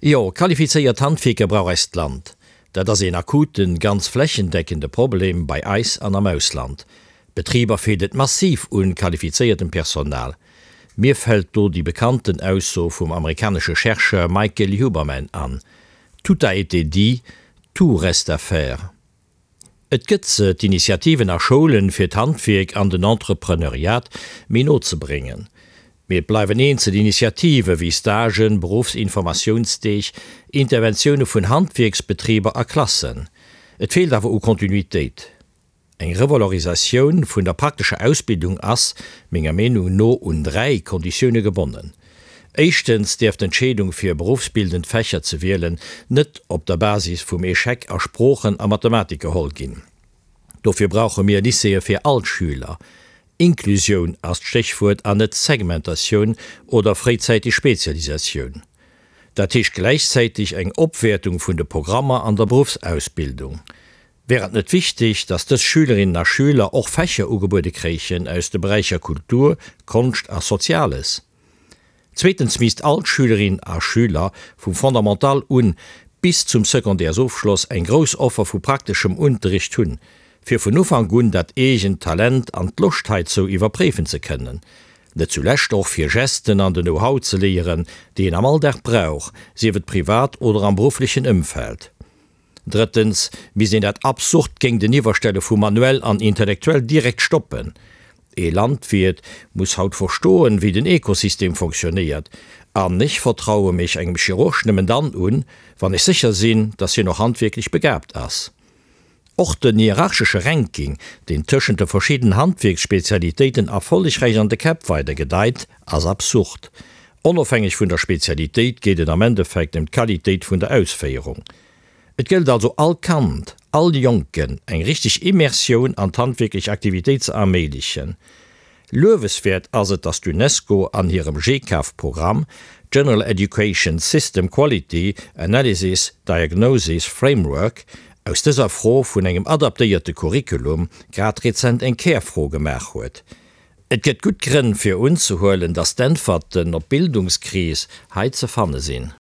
Jo, qualifizéiert Handwierker brauch eist Land. Dat ass een akuten, ganz flächendeckende Problem bei eis an am Ausland. Betriber feelt et massiv un qualifizéiertem Personal. Mir fält do déi bekannten Ausso vum amerikanesche Chercheur Michael Huberman an, Tout a été dit, tout reste à faire. Et gëtt se, d'Initiativen a Schoulen, fir d'Handwierk an den Entrepreneuriat méi no ze bréngen. Mee et bleiwen eenzel Initiative wéi Stagen, Beruffsinformatiounsdeeg, Interventioune vun Handwierksbetriber a Klassen. Et feelt awer u Kontinuitéit. Eng Revalorisatioun vun der praktescher Ausbildung ass, menger Meenung no, un 3 Konditioune gebonnen. Éischtens däerf d'Entscheedung fir beruffsbildend Fächer ze wielen net op der Basis vum Echec a Sproochen a Mathematik geholl ginn. Dofir brauche mir Lycéeë fir all d'Schüler. Inklusioun ass d'Stéchwuert an net Segmentatioun oder fréizäiteg Spezialisatioun. Dat heescht gläichzäiteg eng Opwäertung vun de Programmer an der Beruffsausbildung. Wär et net wichteg, dass dës Schülerinnen a Schüler och Fächer ugebuede kréichen aus de Beräicher Kultur, Konscht a Soziales? Zweetens misst all Schülerin a Schüler vum Fondamental un bis zum Secondaires-Ofschloss eng grouss Offer vu prakteschem Unterricht hunn, fir vun Ufank un dat eegent Talent an d'Loscht heizou iwwerpréifen ze kënnen. Net zulescht och fir Gesten an den Know-how ze léieren, déi een am Alldag brauch, sief et privat oder am berufflechen Ëmfeld. Drëttens misst een dat absurd Géinteniwwerstelle vu manuell an intellektuell direkt stoppen. Ee Landwiert muss haut verstoen, wéi den Ekosystem fonctionnéiert, an ech vertraue mech engem Chirurg nëmmen dann un, wann ech sécher sinn, dass hien och handwierklech begaabt ass. Och den hierarchesche Ranking, deen tëschent de verschidden Handwierksspezialitéiten erfollegräich an de Käpp weidergedeit, ass absurd. Onofhängeg vun der Spezialitéit geet et am Endeffekt ëm d'Qualitéit vun der Ausféierung. Et gëllt also all Kand, all Jonken eng richteg Immersioun an d'handwierklech Aktivitéit ze erméiglechen. Lueweswäert ass et, datt d'UNESCO an hirem GCAF-Programm, General Education System Quality Analysis Diagnosis Framework, aus dëser Fro vun engem adaptéierte Curriculum grad rezent eng Kärfro gemaach huet. Et gëtt gutt Grënn fir unzehuelen, datt d'Äntwerten op d'Bildungskris hei ze fanne sinn.